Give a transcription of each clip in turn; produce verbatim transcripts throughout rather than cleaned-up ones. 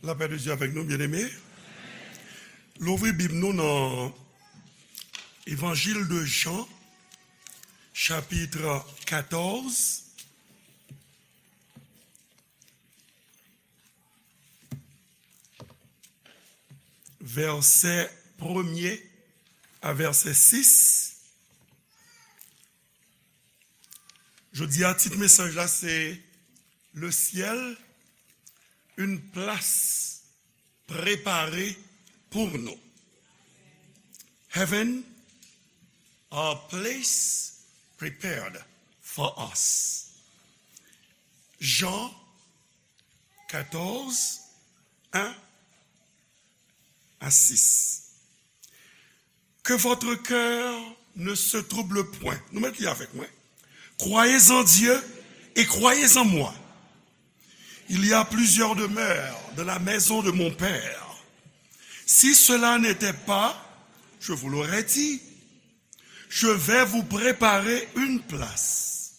Lapè de Dye avèk nou, byeneme. Louvri Bib nou nan Evanjil de Jan, chapit katòz, vèsè premye a vèsè sis. Jodi a, tit mesaj la se Le ciel, une place préparée pour nous. Heaven, a place prepared for us. Jean quatorze, un à six. Que votre cœur ne se trouble point. Nou mèt li avèk mwen. Croyez en Dieu et croyez en moi. Il y a plusieurs demeures dans la maison de mon Père. Si cela n'était pas, je vous l'aurais dit. Je vais vous préparer une place.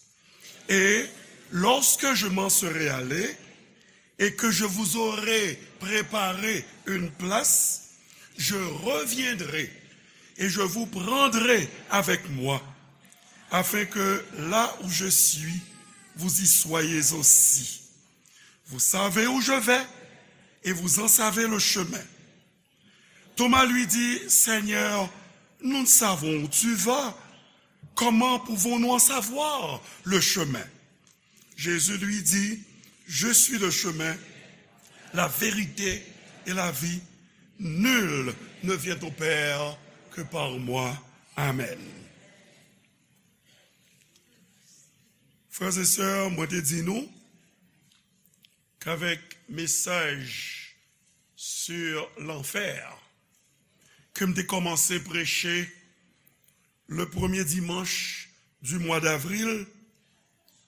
Et lorsque je m'en serai allé, et que je vous aurai préparé une place, je reviendrai et je vous prendrai avec moi, afin que là où je suis, vous y soyez aussi. Vous savez où je vais et vous en savez le chemin. Thomas lui dit, Seigneur, nous ne savons où tu vas. Comment pouvons-nous en savoir le chemin? Jésus lui dit, Je suis le chemin, la vérité et la vie. Nul ne vient au Père que par moi. Amen. Frères et sœurs, mwen te di nou, k'avèk mesaj sur l'enfer ke m te kòmanse preche le premye dimanch du mwa d'avril,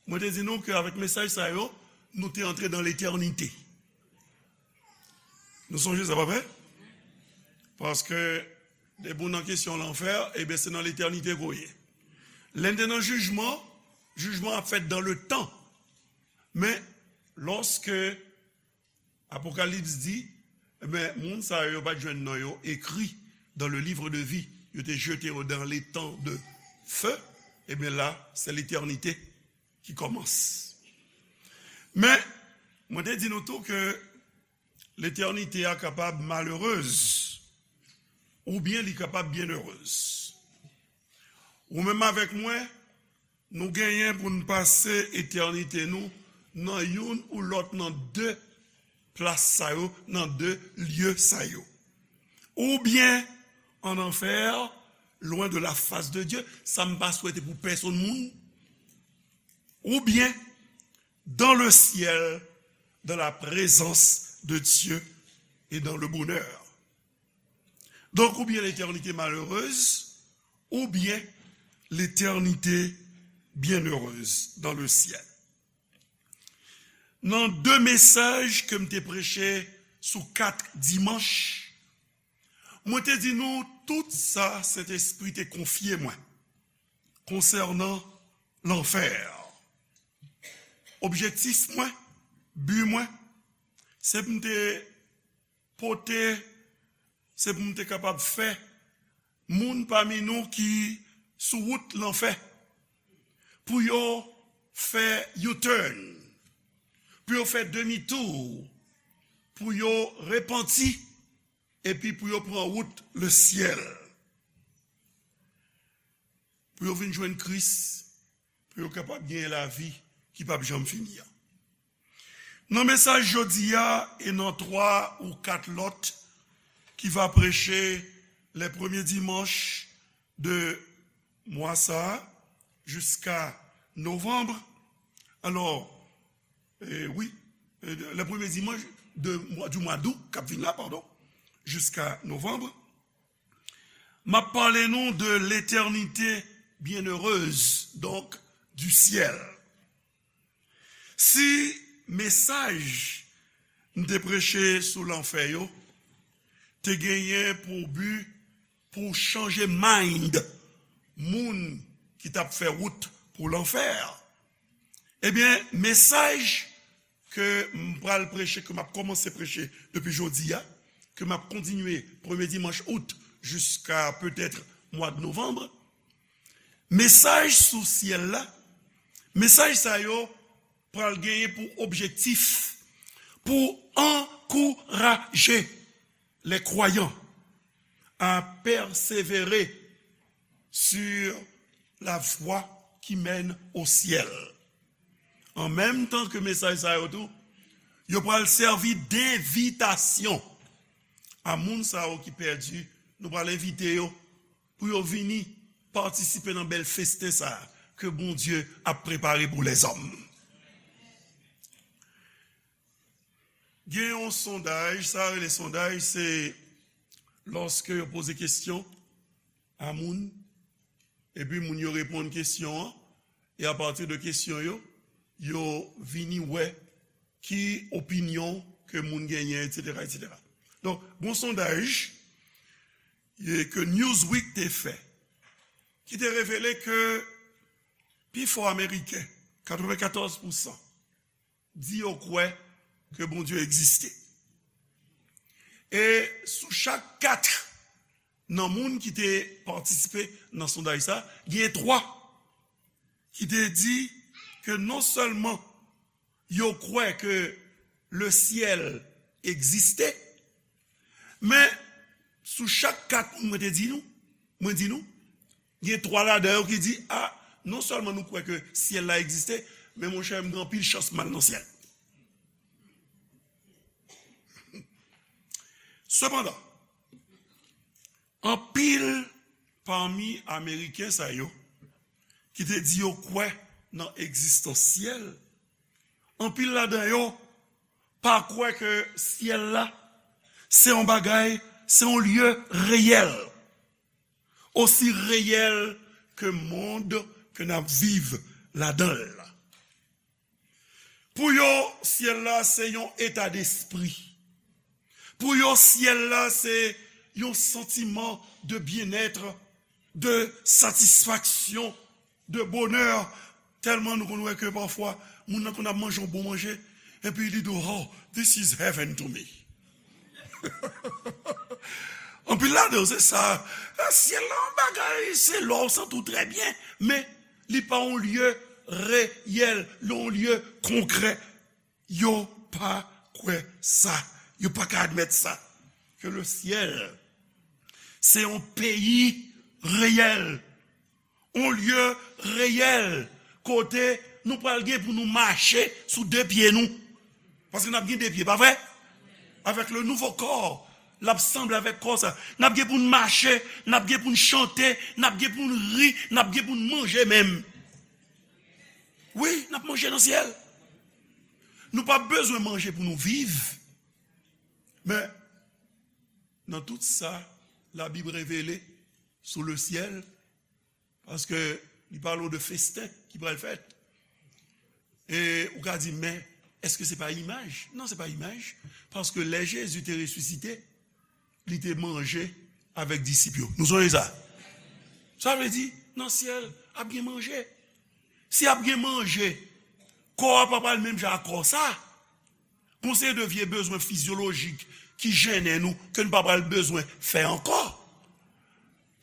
mwen te di nou ke avèk mesaj sa yo, nou te antre dan letènite. Nou sonje sa, pa vre? Paske depi w nan kesyon lanfè, ebyen, se nan letènite ke w ye. Lè n te nan jijman, jijman ap fèt dan le tan. Men, lòske Apokalips di, ebyen, moun sa yo, yo pa t jwenn non yo ekri dans le livre de vie. Yo te jete yo dans l'étang de feu. Ebyen, la, se letènite ki kòmanse. Men, mwen te di nou tou ke letènite a kapab malerez, oubyen li kapab byenerez. Ou menm avèk mwen, nou genyen pou n pase etènite nou nan youn ou lòt nan de plas sa yo, nan de lye sa yo. Oubyen an anfè, lwen de la fas de Dye, sa m pa swete pou pèsonn moun, oubyen dans le ciel, dans la présence de Dieu et dans le bonheur. Donk, oubyen letènite malerez, oubyen letènite byenerez dans le ciel. Nan de mesaj ke m te preche sou kat dimanch, mwen te di nou tout sa Sentespri te konfye mwen konsènan lanfè. Objektif mwen, bi mwen, se pou m te pote, se pou m te kapab fè moun pami nou ki sou wout lanfè, pou yo fè U-turn, pou yo fè demi-tour, pou yo repanti, epi pou yo pran wout lesyèl, pou yo vin jwenn Kris, pou yo kapab genyen lavi ki p ap janm fini an. Nan mesaj jodi a e nan twa ou kat lòt ki va preche les premiers dimanches de mwa sa a jiska novanm. Alò, eh, wi, eh, les premiers dimanches de mwa, du mwa d'août k ap vin la, padon, jiska novanm. M ap pale nou de l'éternité bienheureuse, donc du ciel. Si mesaj m te preche sou lanfè yo te genyen pou bi pou chanje mind moun ki t ap fè wout pou lanfè, ebyen, mesaj ke m pral preche, ke m ap kòmanse preche depi jodi a, ke m ap kontinye premye dimanch out jiska petèt mwa de novanm, mesaj sou syèl la, mesaj sa yo pral genyen pou objektif pou ankouraje les croyants à persévérer sur la voie qui mène au ciel. An menm tan ke mesaj sa yo tou, yo pral sèvi denvitasyon a moun sa yo ki pèdi. Nou pral envite yo pou yo vini patisipe nan bèl festen sa a ke Bondye ap prepare pou lèzòm. Gen yon sondaj, sa rele sondaj, se lòske yo poze kesyon a moun, epi moun yo reponn kesyon an, e apati de kesyon yo, yo vini wè ki opinyon ke moun genyen, etsetera, etsetera. Donk, gon sondaj e, ke Newsweek te fè, ki te revele ke pifò Ameriken, katrevenkatòz pousan, di yo kwè ke Bondye egziste. E sou chak kat nan moun ki te patisipe nan sondaj sa, gen twa ki te di ke non sèlman yo kwè ke le syèl egziste, men sou chak kat moun mwen te di nou, mwen di nou, gen twa ladan yo ki di, a, non sèlman nou kwè ke syèl la egziste, men monchè, m gen anpil chans m al nan syèl. Sepandan, anpil pami Ameriken sa yo ki te di yo kwè nan egzistans syèl, anpil ladan yo pa kwè ke syèl la se yon bagay, se yon lye reyèl, osi reyèl ke mond ke n ap viv ladan l la. Pou yo, syèl la se yon eta despri. Pou yo, syèl la se yon santiman de byennèt, de satisfaksyon, de bonè. Tèlman nou konn wè ke pafwa, moun nan konn ap manje yon bon manje, epi li di w, "Oh, this is heaven to me." Anpil ladan yo, se sa. Syèl la, yon bagay, se lè w santi w trè byen, men li pa yon lye reyèl, li yon lye konkrè. Yo pa kwè sa. Yo pa ka admèt sa. Ke le syèl, se yon peyi reyèl, yon lye reyèl, kote nou pral gen pou nou mache sou de pye nou. Paske n ap gen de pye, pa vre? Avèk le nouvo kò, l ap sanble avèk kò sa. N ap gen pou n mache, n ap gen pou n chante, n ap gen pou n ri, n ap gen pou n manje menm. Wi, n ap manje nan syèl. Nou pa bezwen manje pou nou viv. Men, nan tout sa, Labib revele sou le syèl, paske li pale w de festen ki pral fèt. E ou ka di, men, èske se pa imaj? Non, se pa imaj. Paske lè Jezi te resisite, li te manje avèk disip yo. Nou sonje sa? Sa vle di, nan syèl, ap gen manje. Si ap gen manje, kò a pa pral menm jan ak kò sa. Gon seri de vye bezwen fizyolojik ki jennen nou, ke nou pa pral bezwen fè ankò.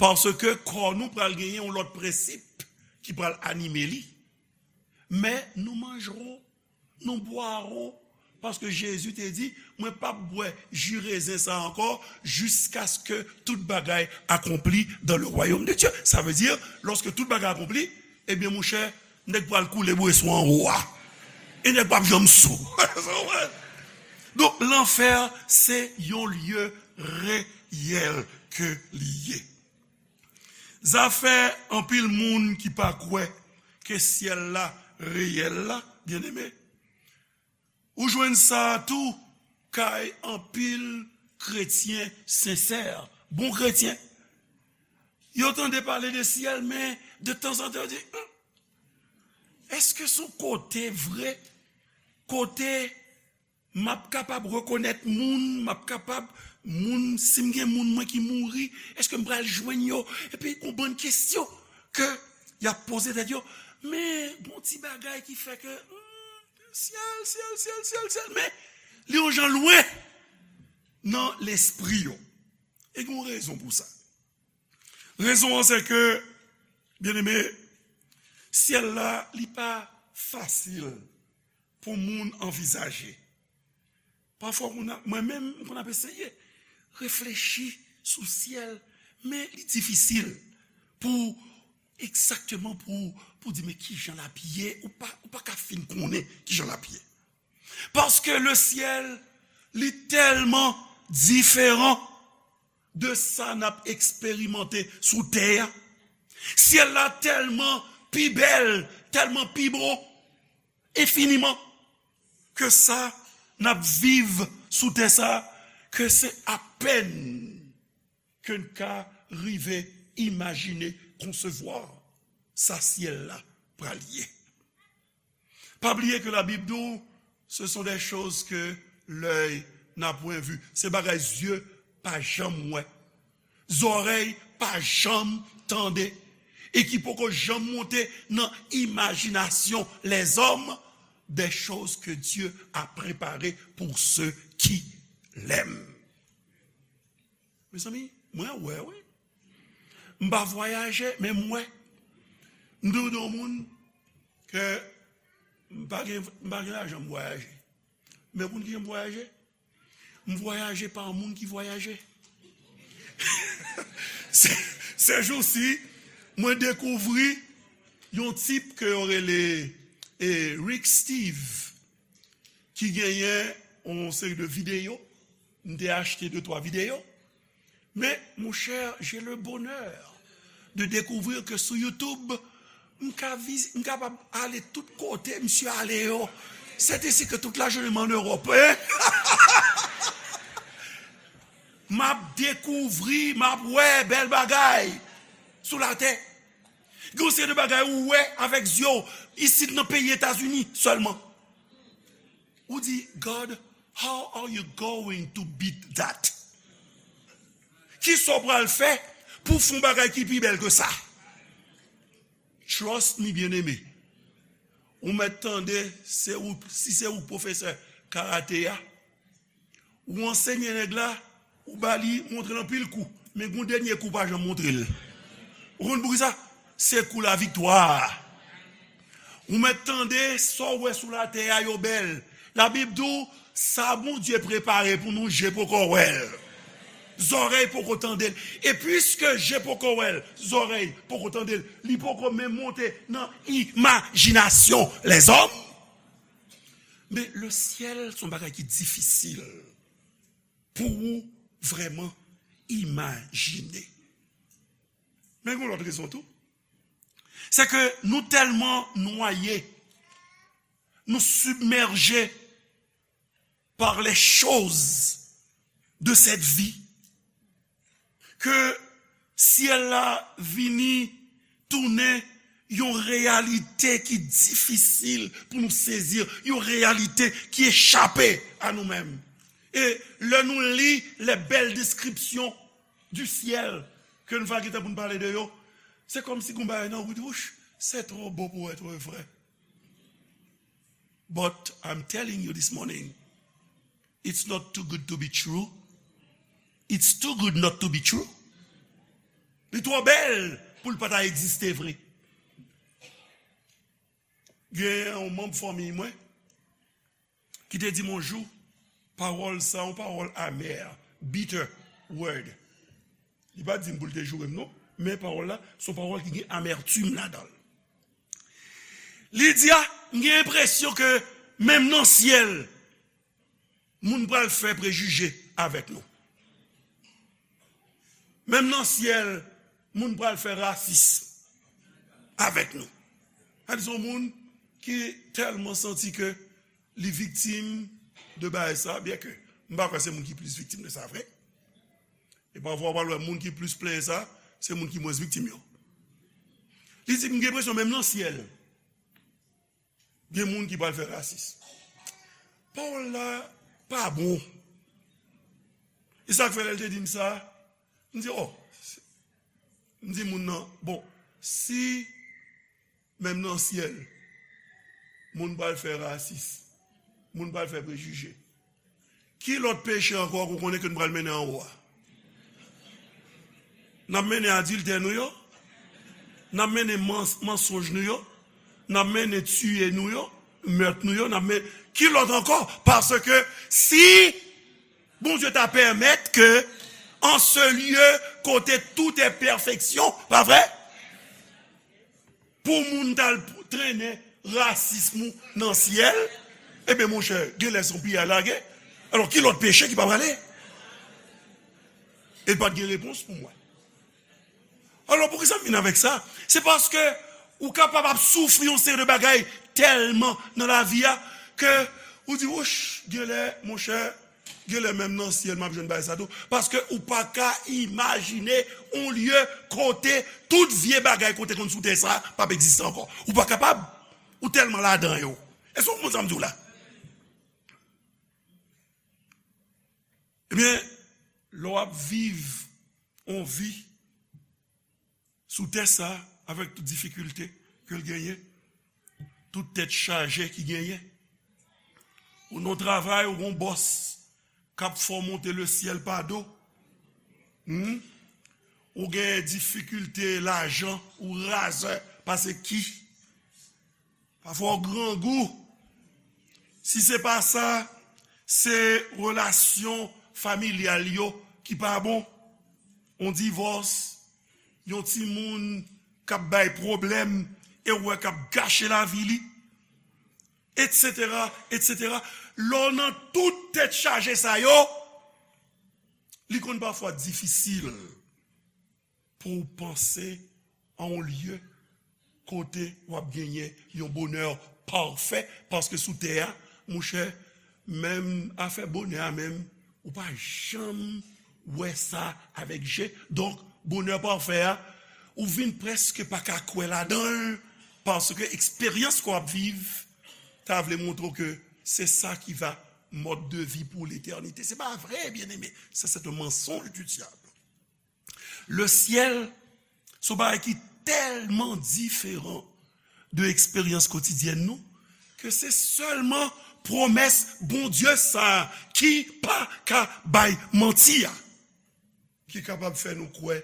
Paske kò nou pral genyen yon lòt prensip ki pral anime li. Men nou manjrò, nou bwarò, paske Jezi te di, mwen p ap bwè ji rezen sa ankò, jiskaske tout bagay akonpli dans le royaume de Dieu. Sa vle di, lòske tout bagay akonpli, ebyen, monchè, nèg pral koule bweswa anwo a. E nèg p ap janm sou. Donk, lanfè, se yon lye reyèl ke li ye. Zafè anpil moun ki pa kwè ke syèl la reyèl la, byeneme, ou jwenn sa tou kay anpil kretyen sensè, bon kretyen. Yo tande pale de syèl, men de tanzantan yo di, hmm, èske se yon kote vre, kote m ap kapab rekonèt moun, m ap kapab, moun, si m gen moun mwen ki mouri, èske m pral jwenn yo? Epi gon bann kesyon ke y ap poze tèt yo. Men gon ti bagay ki fè ke, hmm, syèl, syèl, syèl, syèl, syèl, men li yon jan lwen nan lespri yo. E gen yon rezon pou sa. Rezon an se ke, byeneme, syèl la, li pa fasil pou moun anvizaje. Pafwa, mwen menm, m konn ap eseye reflechi sou syèl, men li difisil pou egzakteman pou, pou di, men kijan l ap ye, ou pa, ou pa ka fin konnen kijan l ap ye. Paske le syèl, li tèlman diferan de sa n ap eksperimante sou tè a. Syèl la tèlman pi bèl, tèlman pi bo, enfiniman, ke sa n ap viv sou tè sa, ke se apèn ke n ka rive imajine, konsevwa sa syèl la pral ye. Pa bliye ke Labib di w, ce sont des choses que l'œil n'a point vues. Se bagay zye pa janm wè, zòrèy pa janm tande, e ki poko janm monte nan imajinasyon lèzòm, des choses que Dieu a préparées pour ceux qui l'aiment. Mezanmi, mwen wè, wi. M pa vwayaje, men m wè. M toujou di yon moun ke m pa gen, m pa gen lajan m vwayaje. Men moun ki jan m vwayaje, m vwayaje pa moun ki vwayaje. Se, se jou si, mwen dekouvri yon tip ke yo rele, e, Rick Steve, ki genyen yon seri de videyo. M te achte de twa videyo. Men, mon cher, j'ai le bonheur de découvrir que sou YouTube, m ka viz-, m kapab ale tout kote misye ale yo. C'est ici que toute la journée en Europe, hein? M ap dekouvri, m ap wè bèl bagay sou latè. Gen yon seri de bagay ou wè avèk zye w isit nan peyi Etazini sèlman. Ou di, God, how are you going to beat that? Kisa w pral fè pou w fè yon bagay ki pi bèl ke sa? Trust me, byeneme. Ou mèt tande, se ou, si se ou pwofesè karate a, ou ansenye nèg la, ou ba li, montre l anpil kou. Men gon dènye kou, pa janm montre l. Ou konn poukisa? Se kou laviktwa a. Ou mèt tande, sa w wè sou latè a yo bèl. Labib di w, sa Bondye prepare pou nou, je poko wè l. Zòrèy poko tande l. E piske je poko wè l, zòrèy poko tande l, li poko menm monte nan imajinasyon lèzòm. Men le syèl se yon bagay ki difisil pou ou vrèman imajine. Men gen yon lòt rezon tou. Se ke nou tèlman nwaye, nou sibmèje par les choses de cette vie, ke syèl la vini tounen yon reyalite ki difisil pou nou sezi, yon reyalite ki echape a nou menm. E lè nou li les belles descriptions du ciel ke nou va gentan pou n pale de yo, se kòmsi gon bagay nan wout, wouch, c'est trop beau pour être vrai. But I'm telling you this morning, it's not too good to be true. It's too good not to be true. Li twò bèl pou l pa ta egziste vre. Gen yon manm fanmi mwen ki te di m yon jou, pawòl sa, yon pawòl amè, bitter word. Li pa di m pou l te joure m non, men pawòl la, se yon pawòl ki gen amètim ladan l. Li di, a, m gen enpresyon ke menm nan syèl, moun pral fè prejije avèk nou. Menm nan syèl, moun pral fè rasis avèk nou. Sa di se yon moun ki tèlman santi ke li viktim de bagay sa, byen ke m pa kwè se moun ki plis viktim de sa vre. E pafwa, w pral wè moun ki plis plenyen sa, se moun ki mwens viktim yo. Li di, m gen enpresyon menm nan syèl, gen moun ki pral fè rasis. Pawòl la pa bon. E sa k fè lè l te di m sa, m di, o, m di moun nan, bon, si menm nan syèl, Moun pral fè rasis. Moun pral fè prejije. Ki lòt peche ankò ke w konnen ke n pral mennen anwo a? N ap mennen adiltè nou yo. N ap mennen mans-, mansonj nou yo. N ap mennen tiye nou yo, mèt nou yo. N ap mennen, ki lòt ankò? Paske si Bondye ta pèmèt ke an se lye kote tout est perfection, pa vre? Pou moun t al trennen rasism ou nan syèl, ebyen, monchè, genlè se yon piyay lage. Alò, ki lòt peche ki pa prale? E pa t gen repons pou mwen. Alò, poukisa m vin avèk sa? Se paske ou kapab ap soufri yon seri de bagay tèlman nan lavi a ke ou di, wouch, genlè, monchè, genlè menm nan syèl m ap jwenn bagay sa tou. Paske ou pa ka imajine yon lye kote tout vye bagay kote konn sou tè sa p ap egziste ankò. Ou pa kapab. Ou tèlman ladan yo. Èske w konprann sa m di w la? Ebyen, lè w ap viv yon vi sou tè sa, avèk tout difikilte ke l genyen, tout tèt chaje ki genyen. Ou nan travay, ou gon bòs k ap fè w monte le syèl pa do. Hmm? Ou gen difikilte lajan, ou razè pase ki. Pafwa w grangou. Si se pa sa, se relasyon familyal yo ki pa bon. Yon divòs, yon timoun k ap bay pwoblèm e w wè k ap gache lavi li, etsetera, etsetera. Lè w nan tout tèt chaje sa yo, li konn pafwa difisil pou w panse a yon lye kote w ap genyen yon bonè pafè, paske sou tè a, monchè, menm afè bonè a menm, ou pa janm wè sa avèk je. Donk, bonè pafè a, ou vin prèske pa ka kwè ladan l, paske eksperyans ke w ap viv ta vle montre w ke se sa ki va mòd de vi pou letènite. Se pa vre, byeneme. Sa, c'est un mensonge du diable. Le syèl, se yon bagay ki tèlman diferan de eksperyans kotidyèn nou, ke se sèlman pwomès Bondye sa a ki pa ka bay manti a, ki kapab fè nou kwè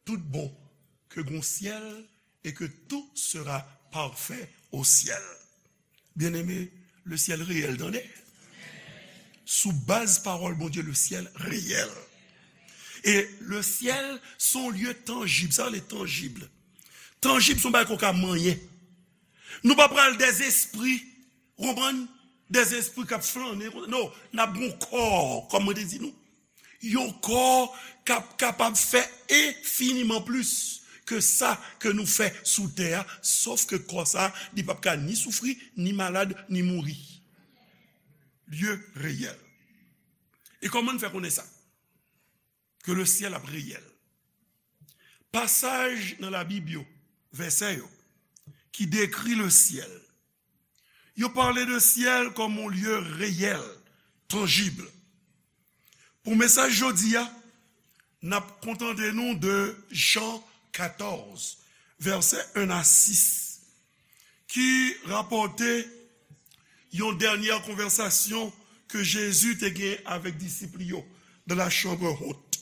tout bon ke gon syèl et que tout sera parfait au ciel. Byeneme, le syèl reyèl, tande. Sou baz pawòl Bondye, le syèl reyèl. E le syèl, se yon lye tanjib. Sa rele tanjib. Tanjib, se yon bagay ke w ka manyen. Nou pa pral dè zespri, w konprann? Dè zespri k ap flannen. Non, n ap gon kò, kòm mwen te di nou. Yon kò k ap kapab fè enfiniman plis ke sa ke nou fè sou tè a, sòf ke kò sa, li p ap ka ni soufri, ni malad, ni mouri. Lye reyèl. E kòman n fè konnen sa? Ke le syèl ap reyèl. Pasaj nan Labib yo, vèsè yo, ki dekri le syèl, yo pale de syèl kòm yon lye reyèl, tanjib. Pou mesaj jodi a, n ap kontante nou de Jan katòz, vèsè en a sis, ki rapòte yon dènyè konvèsasyon ke Jezi te gen avèk disip li yo dans la chambre haute.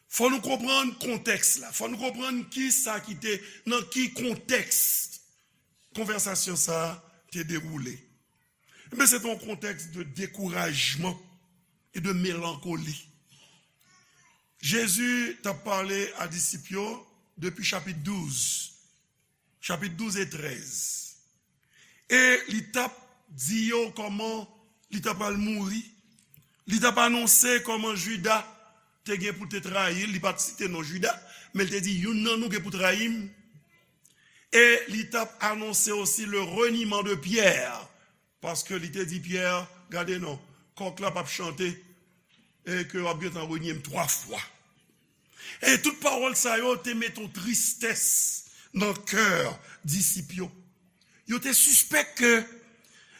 Fò nou konprann kontèks la. Fò nou konprann ki sa ki te, nan ki kontèks konvèsasyon sa a te dewoule. Men se te yon kontèks de dekourajman e de melankoli. Jezi t ap pale a disip yo depi chapit douz, chapit douz e trèz. E li t ap di yo kòman li ta pral mouri. Li t ap anonse kòman Jida te gen pou te trayi l. Li pa t site non Jida, men li te di, youn nan nou gen pou trayi m. E li t ap anonse osi le reniement de Pierre, paske li te di Pyè, gade non, kòk la p ap chante, e ke w ap gentan renye m twa fwa. E tout pawòl sa yo te mete yon tristès nan kè disip yo. Yo te sispèk ke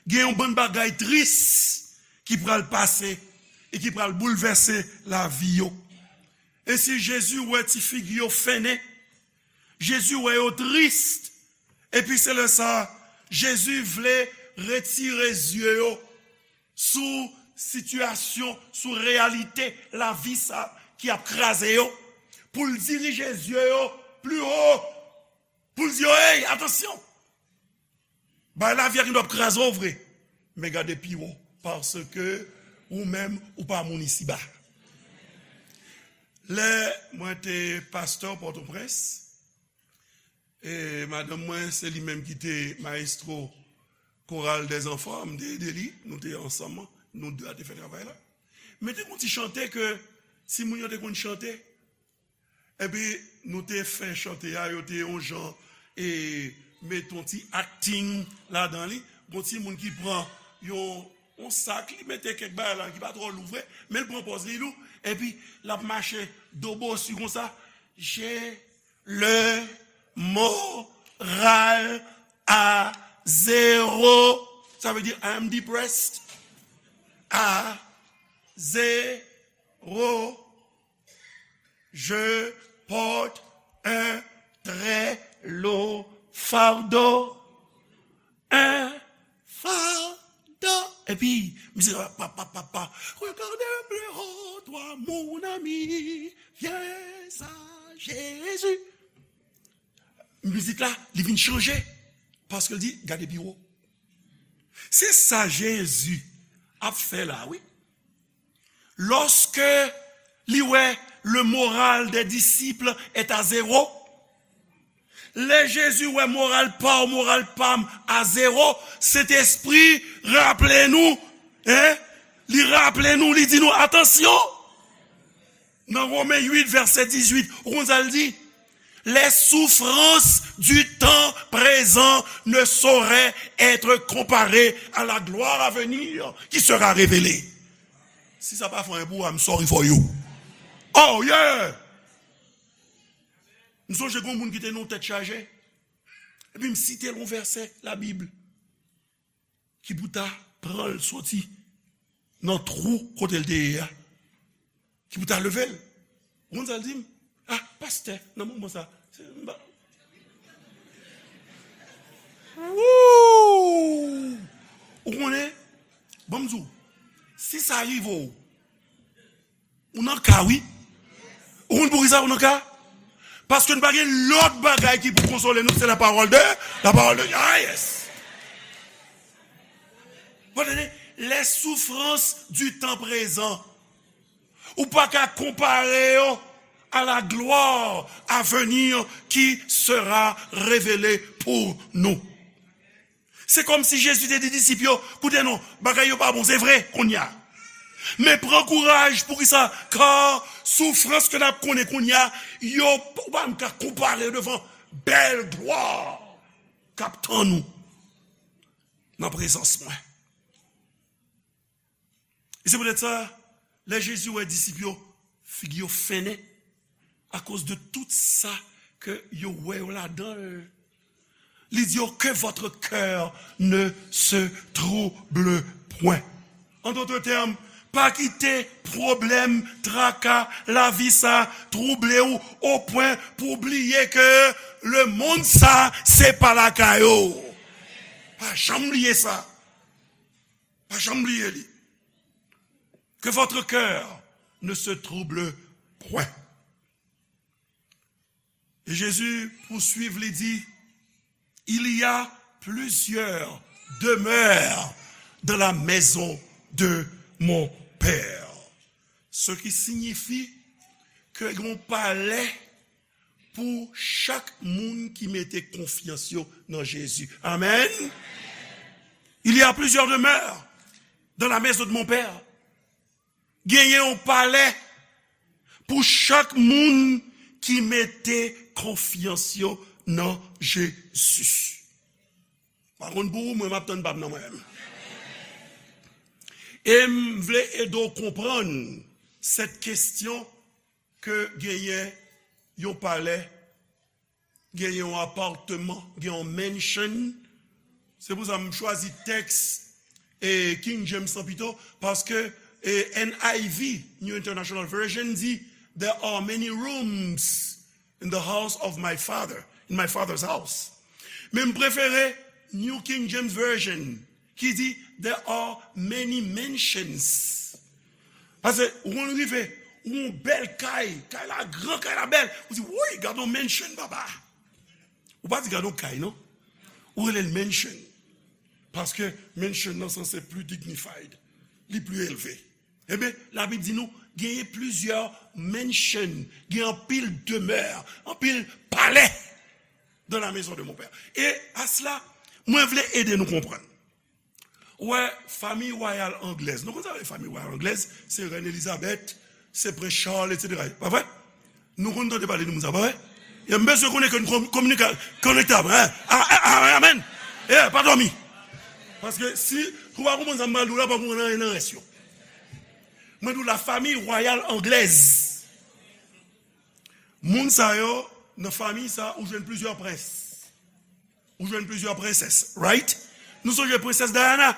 gen yon bann bagay tris ki pral pase e ki pral boulvèse lavi yo. Ensi, Jezi wè ti figi yo fennen. Jezi wè yo tris. Epi se lè sa a, Jezi vle retire zye yo sou sitiyasyon, sou reyalite lavi sa ki ap kraze yo, pou l dirije zye yo pli wo, pou l di yo, "Ey, atansyon! Bay lavi a gen dwa ap kraze w vre, men gade pi wo, paske ou menm, ou pa moun isiba." Lè mwen te pastè Pòtoprens, e madanm mwen, se li menm ki te mayestwo koral dèzanfan, m te ede li, nou te ansanm, nou de a te fè travay la. Men te gon ti chante ke timoun yo te konn chante. Epi nou te fè chante a, yo te yon jan, e, met yon ti acting ladan li. Gon timoun ki pran yon, yon sak, li mete kèk bagay la ki pa twò lou vre, men l pran pòz li lou, epi l ap mache dobosi konsa. J'ai le moral à zéro. Ça veut dire, I am depressed. À zéro. Je porte un très lourd fardeau. Un fardeau. Epi, misye, pa, pa, pa, pa. Regarde plus haut, toi, mon ami. Viens à Jésus. Mizik la, li vin chanje. Paske l di, "Gade pi wo." Se sa Jezi ap fè la, wi. Lorsque li wè le moral des disciples est à zéro, lè Jezi wè moral pa w, moral pa m a zewo, Sentespri raple nou, hein? Li raple nou, li di nou, "Atansyon!" Nan Women uit, vèsè dizuit, ou konn sa l di? Les souffrances du temps présent ne sauraient être comparées à la gloire à venir qui sera révélée. Si sa pa fè anyen pou ou, I'm sorry for you. Oh yeah! M sonje gon moun ki te nan tèt chaje. Epi m site l yon vèsè Labib ki pou ta pran l soti nan twou kote l te ye a. Ki pou ta leve l. Ou konn sa l di m? Ah, pastè, nan moman sa, se, m pa, wouw! Ou konnen, ban m di w, si sa rive w, ou nan ka, wi. Ou konn poukisa ou nan ka? Paske nou pa gen lòt bagay ki pou konsole nou, se la parole de, la parole de, ah, yes. Bon, tande, les souffrances du temps présent. Ou pa ka konpare yo à la gloire à venir qui sera révélée pour nous. Se kòmsi Jezi te di disip yo, "Koute non, bagay yo pa bon, se vre, kounye a. Men pran kouraj, poukisa? Kar soufrans ke n ap konnen kounye a, yo, ou pa menm ka konpare yo devan bèl glwa k ap tann ou nan prezans mwen." E se poutèt sa, lè Jezi wè disip yo, figi yo fennen akoz de tout sa ke yo wè yo ladan l, li di yo, "Que votre cœur ne se trouble point." En d'autres termes, pa kite pwoblèm, traka, lavi sa twouble w o pwen pou w bliye ke lemonn sa, se pa lakay ou. Pa janm bliye sa. Pa janm bliye li. Que votre cœur ne se trouble point. Et Jésus poursuit, li di, "Il y a plusieurs demeures dans la maison de mon Père." Ce qui signifie que gon palè pou chak moun ki mete konfyans yo nan Jezi. Amen. Il y a plusieurs demeures dans la maison de mon Père. Genyen yon palè pou chak moun ki mete konfyans yo nan Jezi. Pa konn pou ou, mwen m ap tann pa m nan mwen menm. E m vle ede w konprann cette question ke genyen yon palè, genyen yon apatman, gen yon mansion. Se pou sa m chwazi tèks e King James lan pito, paske e N I V, New International Version, di, "There are many rooms in the house of my father, in my father's house." Men m prefere New King James Version, ki di, "There are many mansions." Paske ou konn rive, ou yon bèl kay, kay la gran, kay la bèl. Ou di, "Woy, gade yon mansion, papa." Ou pa di, "Gade yon kay," non. Ou rele l mansion. Paske mansion nan sanse pli dignified, li pli elve. Ebyen, Labib di nou, genyen plizyè mansion, gen anpil demè, anpil palè dans la maison de mon père. E a sela, mwen vle ede nou konprann. Ou wè, fanmi wayal anglèz. Nou konn sa vle fanmi wayal anglèz? Se Rèn Elizabèt, se Prens Charles, etsetera. Pa vre? Nou konn tande pale de moun sa, pa vre? E m bezwen konnen ke nou kominika-, konektab, hein? A, a, a, amèn. E, pa dòmi. Paske si ou pa konprann sa m pral di w la, pa konprann anyen nan rès yo. Mwen di w la fanmi wayal anglèz. Moun sa yo, nan fanmi sa, ou jwenn plizyè prens. Ou jwenn plizyè prensès, right? Nou sonje prensès Diana?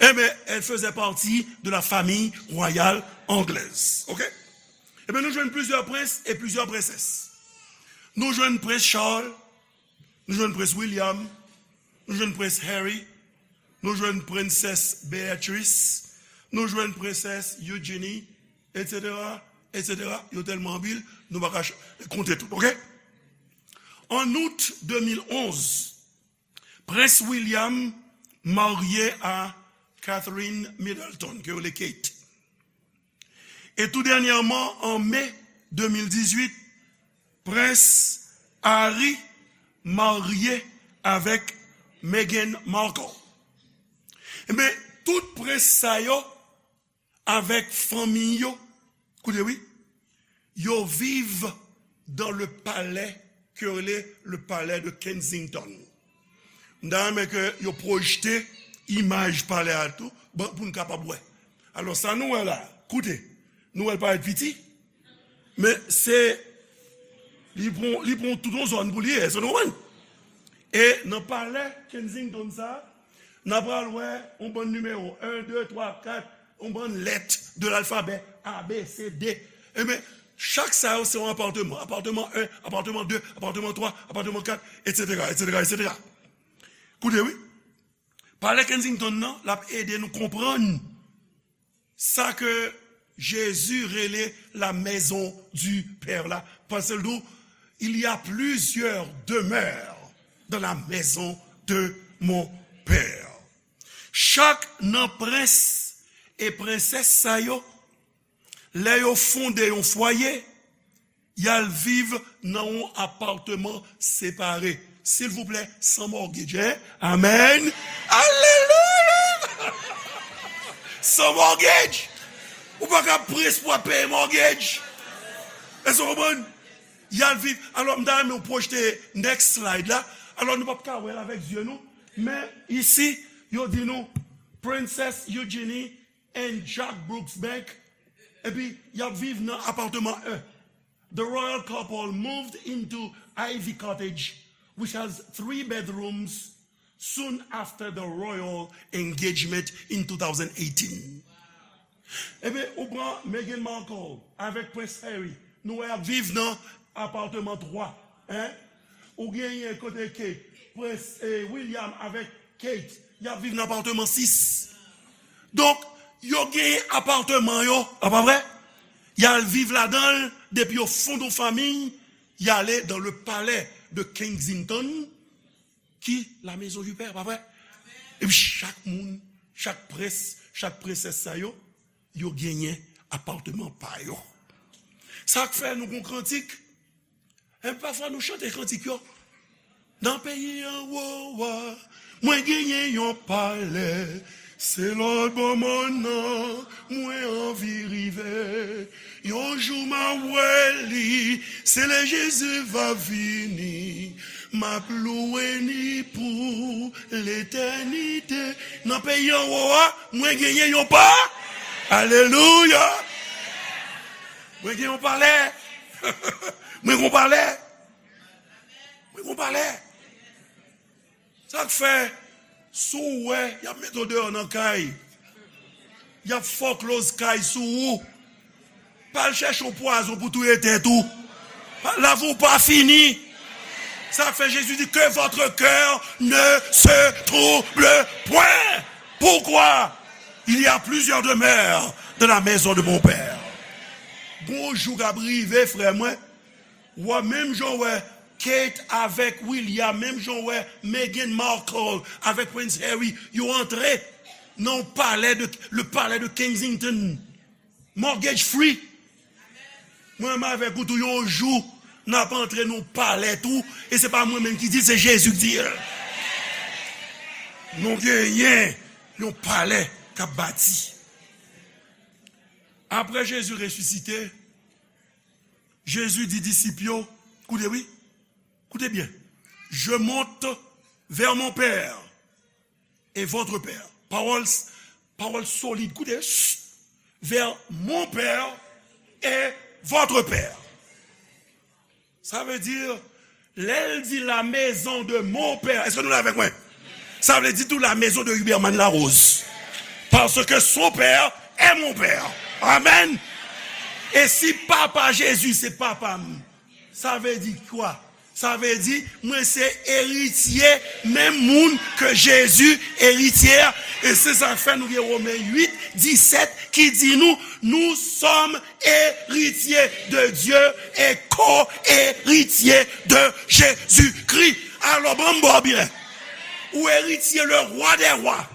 Ebyen, elle faisait partie de la famille royale anglaise, ok? Ebyen, nou jwenn plizyè prens e plizyè prensès. Nou jwenn Prens Charles, nou jwenn Prens William, nou jwenn Prens Harry, nou jwenn Prensès Beatrice, nou jwenn Prensès Eugenie, etsetera, etsetera. Yo tèlman anpil, nou pa ka ch-, konte tout, ok? En août deux mille onze, Prens William marye a Catherine Middleton, ke yo rele Kate. E tou dènyèman, an me de mil dizuit, Prens Harry marye avèk Meghan Markle. Ebyen, tout prens sa yo avèk fanmi yo, koute wi, yo viv dans le palais ke yo rele le palais de Kensington. M ta renmen ke yo pwojte imaj palè a tou, bon, pou n kapab wè. Alò, sa nou wè la, koute, nou wè l parèt piti, men se, li pran, li pran tout yon zòn pou li ye, èske nou konprann? E nan palè Kensington sa, n a pral wè yon bann nimewo, en, de, twa, kat, yon bann lèt de lalfabè, A, B, C, D. Ebyen, chak sa yo se yon apatman. Apatman en, apatman de, apatman twa, apatman kat, etsetera, etsetera, etsetera. Koute wi. Palè Kensington nan, l ap ede nou konprann sa ke Jezi rele la maison du Père la, paske l di w, "Il y a plusieurs demeures dans la maison de mon Père." Chak nan prens e prensès sa yo, lè yo fonde yon fwaye, y al viv nan yon apatman separe. Silvouplè, san mortgage, hein? Amèn. Alelouya! San mortgage. Ou pa ka prens pou ap peye mortgage. Èske w konprann? Y al viv. Alò, m ta renmen w pwojte next slide la. Alò, nou p ap ka wè l avèk zye nou. Men, isi, yo di nou, Princess Eugenie and Jack Brooksbank. Epi, y ap viv nan apatman en. The royal couple moved into Ivy Cottage, which has three bedrooms, soon after the royal engagement in two thousand eighteen. Ebyen, ou pran Meghan Markle avèk Prens Harry. Nou wè y ap viv nan apatman twa. Hein? Ou genyen kote ke Prens, eh, William avèk Kate, y ap viv nan apatman sis. Donk, yo genyen apatman yo, a pa vre? Y al viv ladan l, depi yo fonde yon fanmi, y ale dans le palais de Kensington, ki la maison du père, pa vre? Epi chak moun, chak prens, chak prensès sa yo, yo genyen apatman pa yo. Sa k fè nou gon kantik. E pafwa nou chante kantik yo. Nan peyi anwo a, mwen genyen yon palè. Se lòtbò mòn nan, mwen anvi rive. Yon jou m a wè li, se lè Jezi va vini. M ap louwe ni pou letènite. Nan peyi anwo a, mwen genyen yon pa. Alelouya! Mwen gen yon palè. Mwen gen yon palè. Mwen gen yon palè. Sa k fè, si w wè, y ap mete w deyò nan kay. Y ap fòkloz kay sou ou. Pa al chèche yon pwazon pou touye tèt ou. Pa, lavi w pa fini. Sa fè Jezi di, que votre cœur ne se trouble point. Pourquoi? Il y a plusieurs demeures dans la maison de mon Père. Gon jou k ap rive, frè mwen, w a menm jan w wè Kate avèk William, menm jan w wè Meghan Markle avèk Prince Harry, yo antre nan palè de, le palais de Kensington. Mortgage free. Mwen menm avèk ou tou, yon jou, n ap antre nan palè tou, e se pa mwen menm ki di l, se Jezi ki di l. Nou genyen yon palè k ap bati. Apre Jezi resisite, Jezi di disip yo, koute wi, koute byen, je monte vers mon Père et votre Père. Pawòl, pawòl solid, koute, chut, vers mon Père et votre Père. Sa vle di, lè l di la maison de mon Père, èske nou la avèk mwen? Sa vle di tou la maison de Huberman Larose. Parce que son père est mon père. Amen. E si papa Jezi se papa m, sa vle di kwa? Sa vle di, mwen se eritye, menm moun ke Jezi eritye a. E se sa k fè nou gen Women uit, disèt ki di nou, nous sommes héritiers de Dieu et co-héritiers de Jésus-Christ. Alò, ban m ba w byen. Ou eritye le Roi des rois,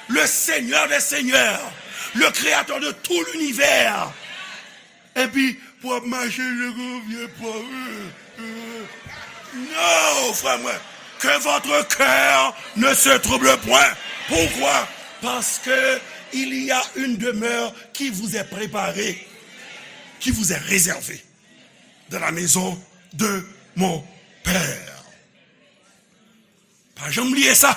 le Seigneur des seigneurs, le Créateur de tout l'univers. Epi, pou ap mache, je konfye pa. Non, frè mwen. Que votre cœur ne se trouble point. Pourquoi? Parce que il y a une demeure qui vous est préparée, qui vous est réservée dans la maison de mon Père. Pa janm bliye sa.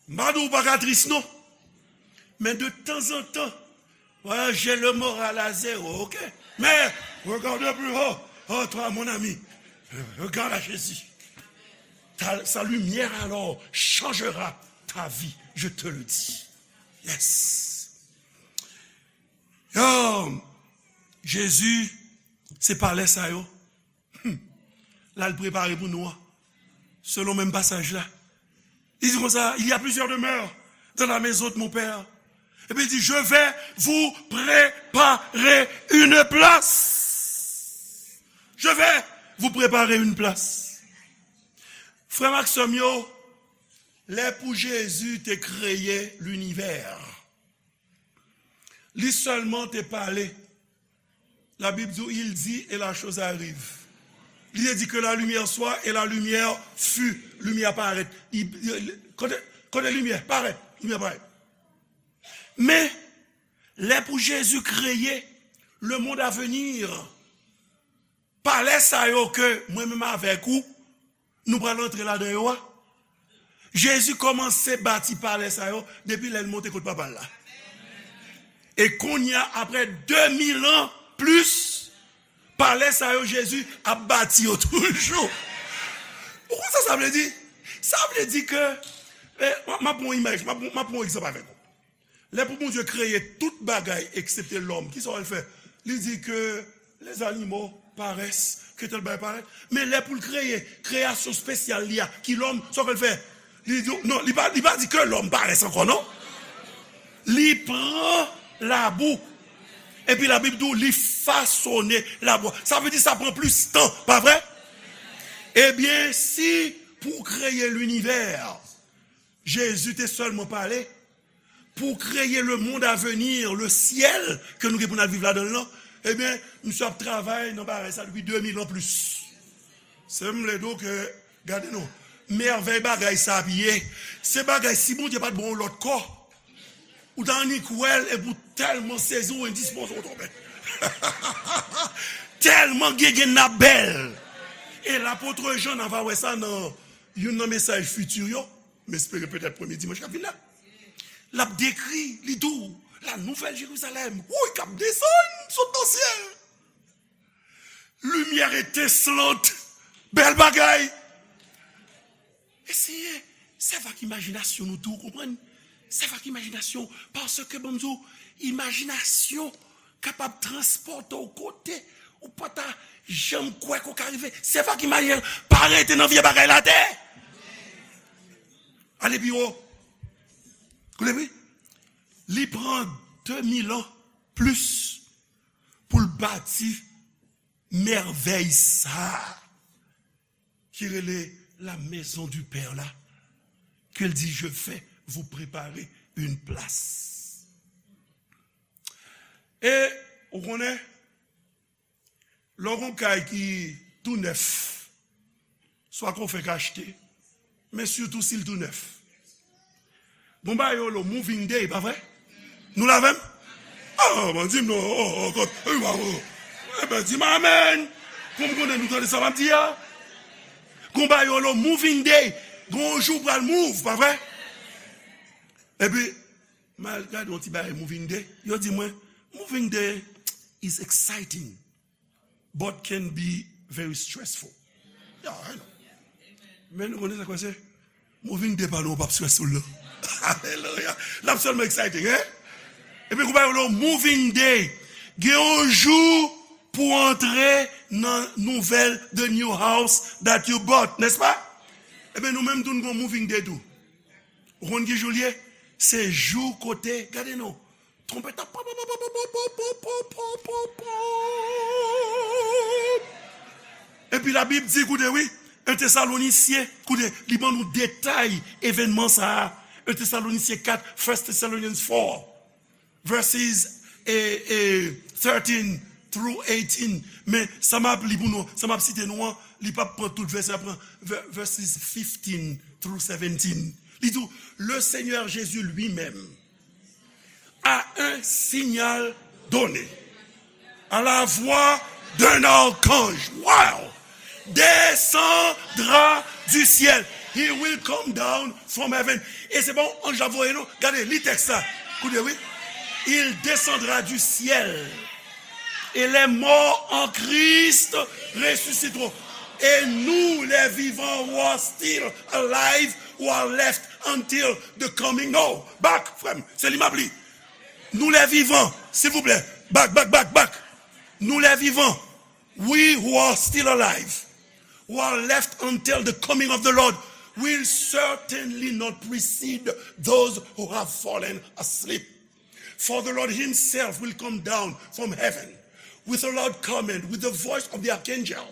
M pa di w pa ka tris non. Men de tanzantan, ouais, j'ai le moral à zéro, ok? Mais regarde plus haut. Oh, toi, mon ami, regarde à Jésus. Ta, sa lumière alors changera ta vie, je te le dis. Yes. Yo, Jezi, se palè sa yo. Hmm. L al prepare pou nou an. Selon menm pasaj la. Li di konsa, il y a plusieurs demeures dans la maison de mon Père. Epi li di, je vais vous préparer une place. Je vais vous préparer une place. Frè m ak sè m yo, lè pou Jezi te kreye linivè, li sèlman te pale. Labib di, il dit et la chose arrive. Li te di que la lumière soit et la lumière fut. Limyè parèt. Li, li, kote, kote limyè? Parèt. Limyè parèt. Men, lè pou Jezi kreye le monde à venir, palè sa yo ke mwen menm avèk ou, nou pral antre ladan yo a. Jezi kòmanse bati palè sa yo depi lè l monte kot Papa l la. E kounye a, apre de mil an plis, palè sa yo, Jezi ap bati yo toujou. Ou konn sa sa vle di? Sa vle di ke, eh, m, m ap pran yon imaj, m ap, m ap pran yon egzanp avèk ou. Lè pou Bondye kreye tout bagay eksepte lòm, kisa w wè l fè? Li di ke les animaux paraissent, ke tèl bagay parèt. Men lè pou l kreye kreyasyon espesyal li a, ki lòm, sa w wè l fè? Li di, non, li pa, li pa di ke lòm parès ankò, non. Li pran labou. Epi Labib di w, li fasone labou. Sa vle di sa pran plis tan, pa vre? Ebyen, si pou kreye linivè, Jezi te sèlman pale, pou kreye le monde à venir, le syèl ke nou gen pou n al viv ladan l lan, ebyen, misye ap travay nan bagay sa depi de mil an plis. Se m vle di w ke, gade non, mèvèy bagay sa ap ye. Se bagay, si Bondye pa t ban w lòt kò, ou ta annik wè l epi w tèlman sezi, w endispoze, w tonbe. Tèlman gen gen n ap bèl. E lapot Jan, n a va wè sa nan youn nan mesaj fiti yo, m espere petèt premye dimanch k ap vin la. L ap dekri, li di w, la nouvèl Jerizalèm, wouy, k ap desann, sot nan syèl. Limyè etenslant, bèl bagay. Eseye sèvi ak imajinasyon nou tou, konprann? Sèvi ak imajinasyon, paske, ban m di w, imajinasyon kapab transpòte w kote Ou pa ta janm kwè ke w ka rive. Se pa ki mannyè l pa rete nan vye bagay la atè. Ale pi wo. Koute wi. Li pran de mil an plis pou l bati mèvèy sa a ki rele la maison du Père la, ke l di, je vais vous préparer une place. E, ou konnen, lè w gon kay ki tou nèf, swa ke w fèk achte, men sitou si l tou nèf. Gon bagay yo rele moving day, pa vre? Nou la avè m? Ah, ban di m non, oh, oh, kot, eh, ba, oh. Eben, di m amèn. Pou m konnen nou tande sa m ap di a. Gon bagay yo rele moving day. Gon jou pral move, pa vre? Epi, m al gade yon ti bagay moving day. Yo di mwen, moving day is exciting, but can be very stressful. Yeah, I know. Men nou konnen sa k pase? Moving day pa nou p ap stressful non. Alelouya. L ap sèlman exciting, hein? Epi kou pa yo lo moving day. Gen yon jou pou antre nan nouvèl, the new house that you bought, nèspa? Eben nou menm tou n gon moving day tou. Ou konn ki jou l ye? Se jou kote, gade non, twonpèt ap pop, pop, pop. Epi Labib di, koute wi, en Tesalonisyen, koute, li ban nou detay evènman sa a. En Tesalonisyen kat, First Thessalonians four, verses, eh, eh, thirteen through eighteen. Men sa m ap li pou nou, sa m ap site nou an, li p ap pran tout vèsè, l ap pran ver- verses fifteen through seventeen. Li di w, le Seigneur Jésus lui-même, à un signal donné, à la voix d'un archange, wow, descendra du ciel. He will come down from heaven. E se pa yon anj l ap voye non. Gade, li tèks la. Koute wi. Il descendra du ciel. Et les morts en Christ ressusciteront. Et nous, les vivants who are still alive, who are left until the coming. No, back, frè m, se li m ap li. Nous les vivants, silvouplè, back, back, back, back. Nous les vivants, we who are still alive, who are left until the coming of the Lord, will certainly not precede those who have fallen asleep. For the Lord himself will come down from heaven with a loud command, with the voice of the archangel,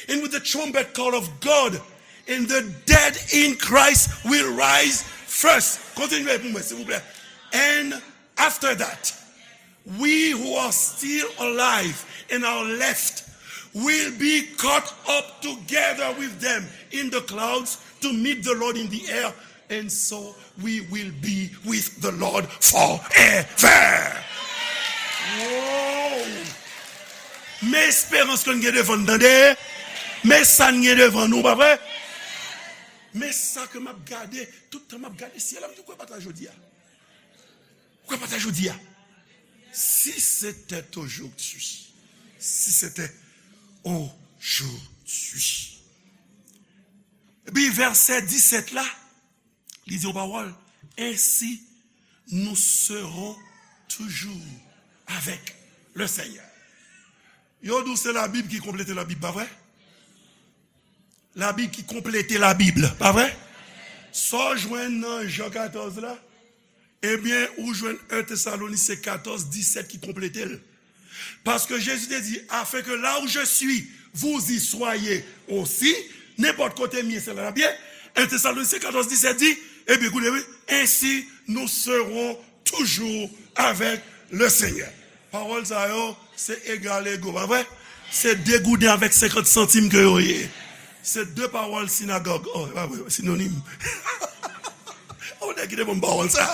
and with the trumpet call of God, and the dead in Christ will rise first. Kontinye pou mwen, silvouplè. And after that, we who are still alive and are left will be caught up together with them in the clouds to meet the Lord in the air, and so we will be with the Lord forever. Wow! Men esperans ke n gen devan n, tande? Men sa n gen devan nou, pa vre? Men sa ke m ap gade, tout tan m ap gade syèl la, m di, ou kwè pa ta jodi a? Ou kwè pa ta jodi a? Si c'était aujourd'hui, si c'était aujourd'hui. Epi vèsè disèt la, li di yon pawòl, ainsi nous serons toujours avec le Seigneur. Yo di w se Labib ki konplete Labib, pa vre? Labib ki konplete Labib, pa vre? Sa w jwenn nan Jan katòz la, ebyen, ou jwenn en Tesalonisyen katòz disèt ki konplete l. Paske Jezi te di, afin que là où je suis, vous y soyez aussi. Nenpòt kote m ye, se la n ap ye. En Tesalonisyen katòz disèt di, ebyen, koute wi, ainsi nous serons toujours avec le Seigneur. Pawòl sa yo, se egal ego, pa vre? Se de gouden avèk senkant santim ke yo ye. Se de pawòl sinagòg. Oh, pa vre, sinonim. Oh, nèg ki te ban m pawòl sa.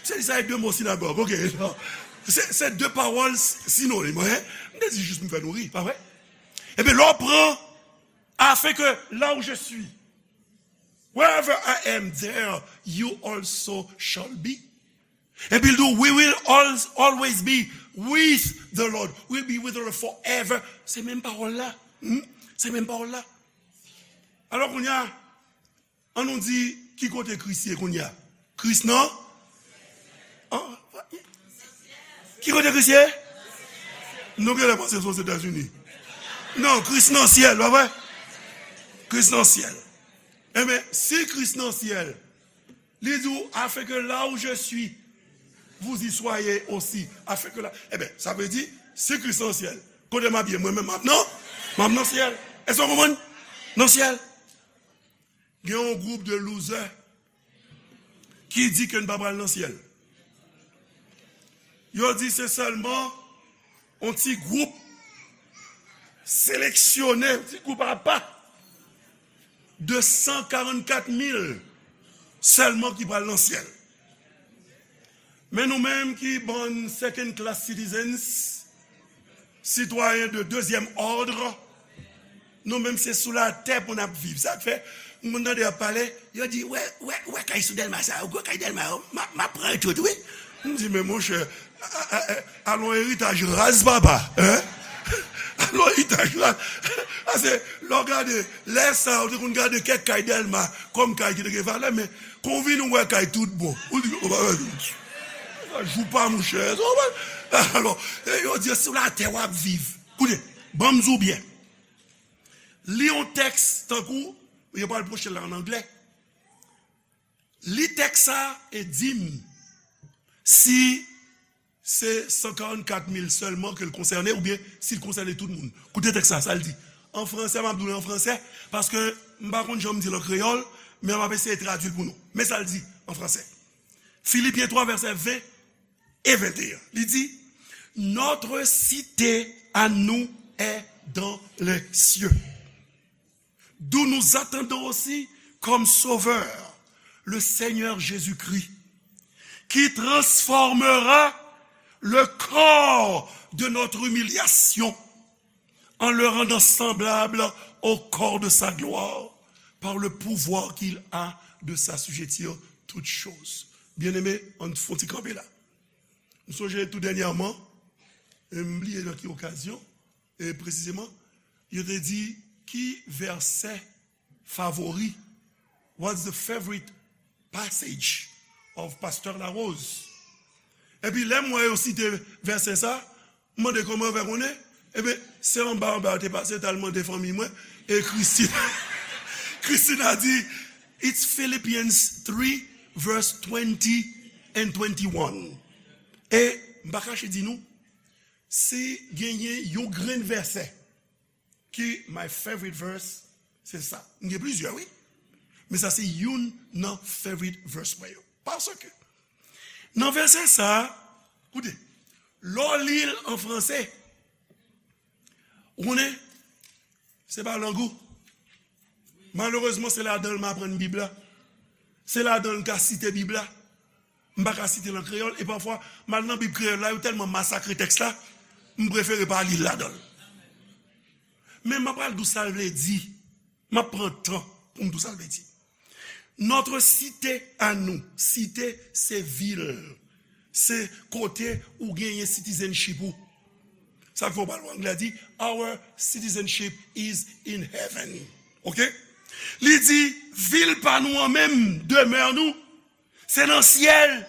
Se li sa e de mo sinagòg, ok. Se, se de pawòl sinonim, hein? M te di jis pou m fè nou ri, pa vre? Ebyen, lè w pran, afin que là où je suis, wherever I am, there you also shall be. Epi l di w, we will al- always be with the Lord. We'll be with the Lord forever. Se menm pawòl la. Hmm? Se menm pawòl la. Alò, kounye a, ann nou di, ki kote Kris ye kounye a? Kris nan? An? Ki kote Kris ye? Nou genlè panse se Non, Kris nan syèl, pa vre? Kris nan syèl. Enben, si Kris nan syèl, li di w, afin que là où je suis, vous y soyez aussi. Afin que là, enben, sa vle di, si Kris nan syèl, kote m ap ye? Mwen menm m ap nan, m ap nan syèl. Èske w konprann? Nan syèl. Gen yon gwoup de loser ki di ke n pa pral nan syèl. Yo di se sèlman yon ti gwoup seleksyone, yon ti gwoup apa de san karannkat mil sèlman ki pral nan syèl. Men nou menm ki bann second class citizens, sitwayen de dezyèm òd, nou menm se sou latè pou n ap viv. Sa k fè, moun tande y ap pale, yo di, wè, wè, wè kay sou Dèlma sa, ou wè kay Dèlma yo, m ap, m ap pran yo tout, wi. M di, men monchè, a, a, a, alon eritaj raz, papa, hein? Alon eritaj raz. Pase, lè w gade, lè sa, ou te konn gade kèk kay Dèlma kòm kay ki te gen valè, men Kon w vin ou wè kay tout bon. Ou di, o, pa, pa, pa, jou pa, monchè. Alò, e yo di, sou latè w ap viv. Koute, ban m di w byen. Li yon tèks tankou, yo pral pwoche l an anglè. Li tèks sa e di m si se san karannkat mil sèlman ke l konsène oubyen si l konsène tout moun. Koute tèks sa, sa l di. An fransè, m ap di w li an fransè, paske m pa konn jan m di l an kreyòl, men m ap eseye tradui l pou nou. Men sa l di an fransè. Filipyen twa, vèsè ven e venteyen. Li di, notre cité à nous est dans les cieux, d'où nous attendons aussi comme Sauveur le Seigneur Jésus-Christ, qui transformera le corps de notre humiliation en le rendant semblable au corps de sa gloire, par le pouvoir qu'il a de s'assujettir toutes choses. Byeneme, ann fon ti kanpe la. M sonje tou dènyèman, e m bliye nan ki okazyon, e presizeman, yo te di ki vèsè favori, what's the favorite passage of Pasteur Larose? Epi lè m wè yo site vèsè sa, m mande kòman yo fè konnen. Ebyen, se anba anba yo te pase, t al mande fanmi mwen, e Christine, Christina di, it's Philippians three, verse twenty and twenty-one. E m pa kache di nou, si genyen yon grenn vèsè ki my favorite verse, se sa. M gen plizyè, wi. Men sa se youn nan favorite verse mwen yo. Paske, nan vèsè sa, koute, lè w li l an fransè, ou konnen, se pa lang ou. Malerezman, se ladan l m aprann Bib la. Se ladan l m ka site Bib la. M pa ka site l an kreyòl, e pafwa, m al nan Bib kreyòl la, yo tèlman masakre tèks la, m prefere pa li l ladan l. Men m ap pral di w sa l vle di. M ap pran tan pou m di w sa l vle di. Notre cité à nous, site se vil, se kote ou genyen citizenship ou. Sa k fè w pral wè anglè di, our citizenship is in heaven. Oke? Li di, vil pa nou an menm, demè nou, se nan syèl.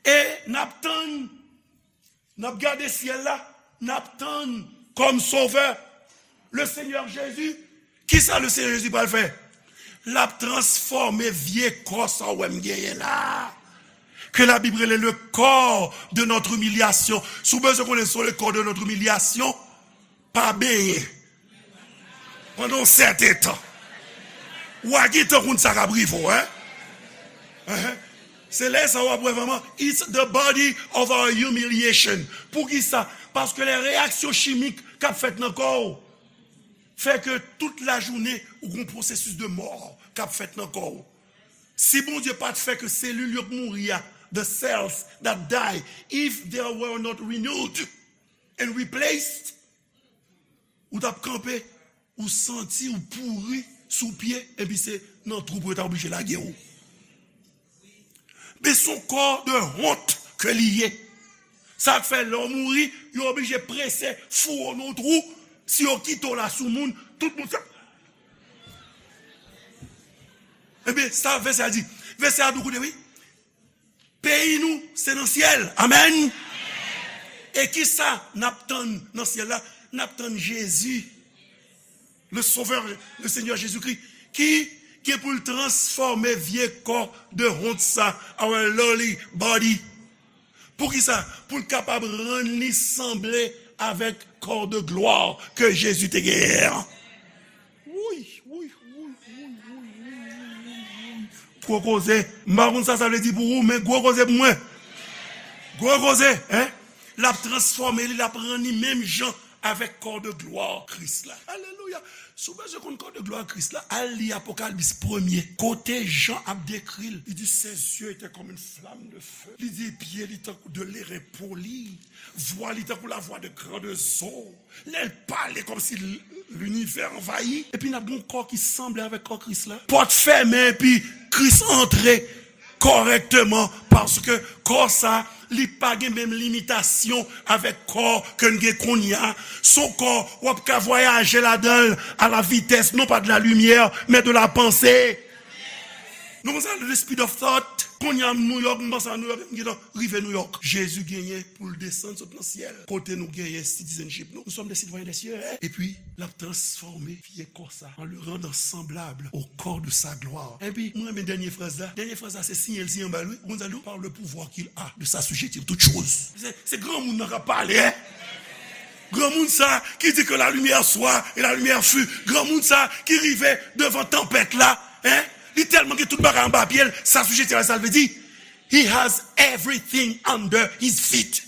E n ap tann, n ap gade syèl la, n ap tann kòm Sovè, le Senyè Jezi. Kisa le Senyè Jezi pral fè? L ap transfòme vye kò sa w wè m genyen la, ke Labib rele le corps de notre humiliation. Si w bezwen konnen se le corps de notre humiliation, pa benyen pandan yon sèten tan. W a gentan konn sa k ap rive w, en? Enhen. Se lè sa w ap wè vrèman, it's the body of our humiliation. Poukisa? Paske lè reyaksyon chimik k ap fèt nan kò w fè ke tout lajounen ou gon pwosesis de mò k ap fèt nan kò w. Si Bondye pa t fè ke selil yo k mouri a, the cells that die, if they were not renewed and replaced, ou t ap kanpe, ou santi ou pouri sou pye, epi se nan twou pou yo ta oblije lage w. Men se yon kò de wont ke li ye. Sa k fè lè w mouri, yo oblije prese foure w nan yon twou. Si yo kite w la sou moun, tout moun sa. Ebyen, sa vèsè a di. Vèsè a di, koute, wi. Peyi nou, se nan syèl. Amèn. E kisa n ap tann nan syèl la? N ap tann Jezi, le Sauveur, le Seigneur Jésus-Christ, ki gen pou l transfòme vye kò de wont sa, our lowly body. Poukisa? Pou l kapab rann li sanble avèk kò de glwa ke Jezi te genyen an. Wouy, wouy, wouy, wouy, wouy, wouy, wouy, wouy. Gwo koze. M pa konn sa sa vle di pou ou, men gwo koze pou mwen. Gwo koze, en? L ap transfòme li, l ap rann li menm jan avèk kò de glwa Kris la. Alelouya! Si w bezwen konn kò de glwa Kris la, al li Apocalypse premye, kote Jan ap dekri l. Li di, ses yeux étaient comme une flamme de feu. Li di, pye li tankou de leren poli. Vwa li tankou lavwa de grandes eaux. Lè l pale kòmsi l-, linivè anvayi. Epi n ap gen yon kò ki sanble avèk kò Kris la. Pòt fèmen epi Kris antre kòrèkteman, paske kò sa, li pa gen menm limitasyon avèk kò ke n gen kounye a. Se yon kò w ap ka vwayaje ladan l à la vitesse, non pas de la lumière, mais de la pensée. Nou konn sa, the speed of thought. Kounye a, m New York, m panse a New York, m gentan rive New York. Jezi genyen pou l desann sot nan syèl. Kote nou genyen citizenship nou? Nous sommes des citoyens des cieux, hein? Epi, l ap transfòme vye kò sa, en le rendant semblable au corps de sa gloire. Epi, mwen renmen dènye fraz la. Dènye fraz la, se siyen l siyen anba l, wi. Ou konn sa l di w? Par le pouvoir qu'il a de s'assujettir toutes choses. Se, se granmoun nan k ap pale, en. Granmoun sa ki di que la lumière soit et la lumière fut. Granmoun sa ki rive devan tanpèt la, en. Li tèlman gen tout bagay anba pye l, s'assujettir, sa l vle di? He has everything under his feet.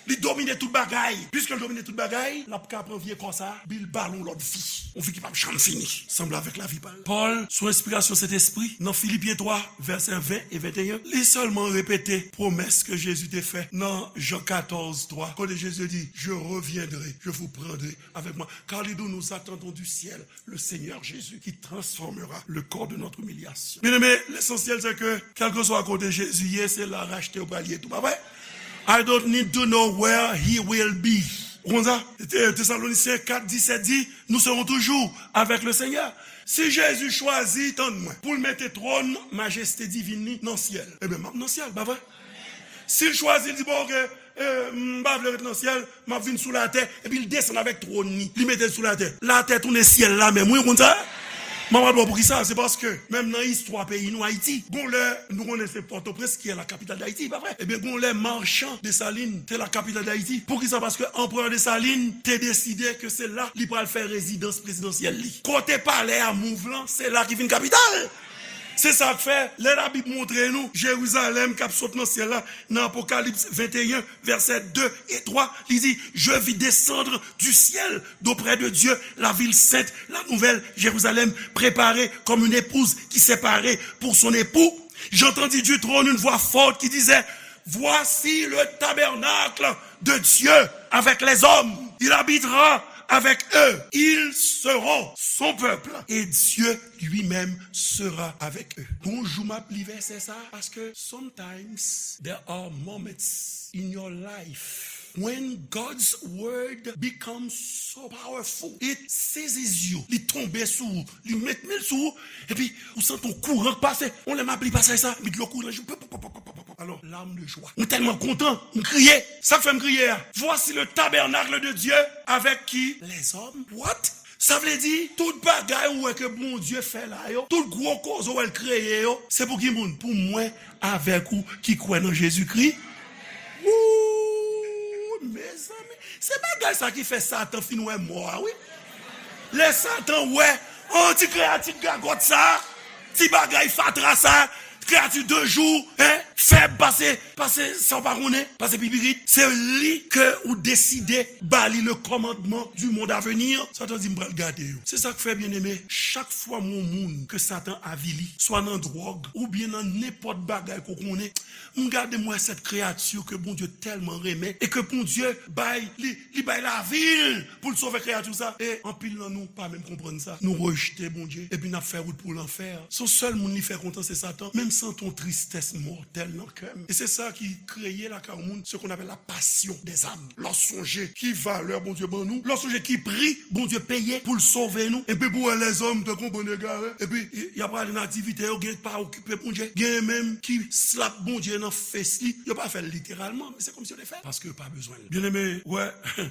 Li domine tout bagay. Piske l domine tout bagay, l ap ka pran vye kò sa, epi l ba l yon lòt vi. Yon vi ki p ap janm fini. Sanble avèk lavi pa l. Pòl, sou enspirasyon Sentespri, nan Filipyen twa, vèsè ven e venteyen, li sèlman repete pwomès ke Jezi te fè nan Jan katòz twa, kote Jezi di, je reviendrai, je vous prendrai avec moi, car les deux nous attendons du ciel le Seigneur Jésus qui transformera le corps de notre humiliation. Bien-aimé, l'essentiel, c'est que, kèlkeswa kote Jezi ye, se la rachte ou pral ye tou, pa vre? I don't need to know where he will be. Ou konn sa? Te-, Tesalonisyen kat disèt di, nous serons toujours avec le Seigneur. Si Jezi chwazi, tann mwen, pou l mete twòn majeste divin li nan syèl, ebyen, m ap nan syèl, pa vre? Si l chwazi, l di, bon, oke, e, m pa vle ret nan syèl, m ap vin sou latè, epi l desann avèk twòn li, li mete l sou latè. Latè tounen syèl la menm, wi, ou konn sa? M ap di w poukisa, se paske, menm nan istwa peyi nou, Ayiti, gon lè, nou konnen se Pòtoprens ki est la capitale d'Haïti, pa vre? Ebyen, gon lè, Marchand Dessalines te la capitale d'Haïti. Poukisa? Paske Anperè Desalin te deside ke se la li pral fè rezidans prezidansyèl li. Kote palè a mouv lan, se la ki vin kapital. Se sa k fè, lè Labib montre nou Jerizalèm k ap sot nan syèl la, nan Apokalips venteyen, vèsè de e twa, li di, je vis descendre du ciel d'auprès de Dieu la ville sainte, la nouvelle Jérusalem, préparée comme une épouse qui s'est parée pour son époux. J'entendis du trône une voix forte qui disait, voici le tabernacle de Dieu avec les hommes. Il habitera avec eux. Ils seront son peuple et Dieu lui-même sera avec eux. Gon jou m ap li vèsè sa, paske sometimes there are moments in your life when God's word becomes so powerful, it seizes you. Li tonbe sou ou, li met men l sou ou, epi ou santi yon kouran k pase. Yon lè m ap li pasaj sa, epi dlo kouri nan je m. Alò, larmes de joie. Mwen tèlman kontan, m kriye. Sa k fè m kriye a? Voici le tabernacle de Dieu avec qui? Les hommes. What? Sa vle di, tout bagay ou wè ke Bondye fè la yo, tout gwo koze ou wè l kreye yo, se pou ki moun? Pou mwen avèk ou ki kwè nan Jezikri. Wouy, mezanmi, se bagay sa ki fè Satan fin wè mò a, wi. Lè Satan wè, an, ti kreyati gagòt sa, ti bagay fatra sa, kreyati de jou, en, fèb pase, pase sa w pa konnen, pase pipirit. Se li ke ou deside ba li le commandement du monde à venir. Satan di, m pral gade yo. Se sa k fè, byeneme, chak fwa m wè yon moun ke Satan avili, swa nan dwòg, oubyen nan nenpòt bagay ke w konnen, m gade, m wè sèt kreyati ke Bondye tèlman renmen, e ke Bondye bay, li, li bay lavi l pou l sove kreyati sa. E anpil nan nou pa menm konprann sa. Nou rejte Bondye, epi n ap fè wout pou lanfè. Se yon sèl moun li fè kontan, se Satan. Men m santi yon tristès mòtèl. nan kè m. E se sa ki kreye lakay yon moun ce qu'on appelle la passion des âmes. Lè w sonje ki valè Bondye ban nou, lè w sonje ki pri Bondye peye pou l sove nou, epi pou wè lèzòm tankou yon bann egare, epi y, y ap prale nan aktivite yo, gen pa okipe Bondye, gen menm ki slap Bondye nan fes li, yo pa fè l literalman, men se kòmsi yo te fè l, paske yo pa bezwen l. Byeneme, wè,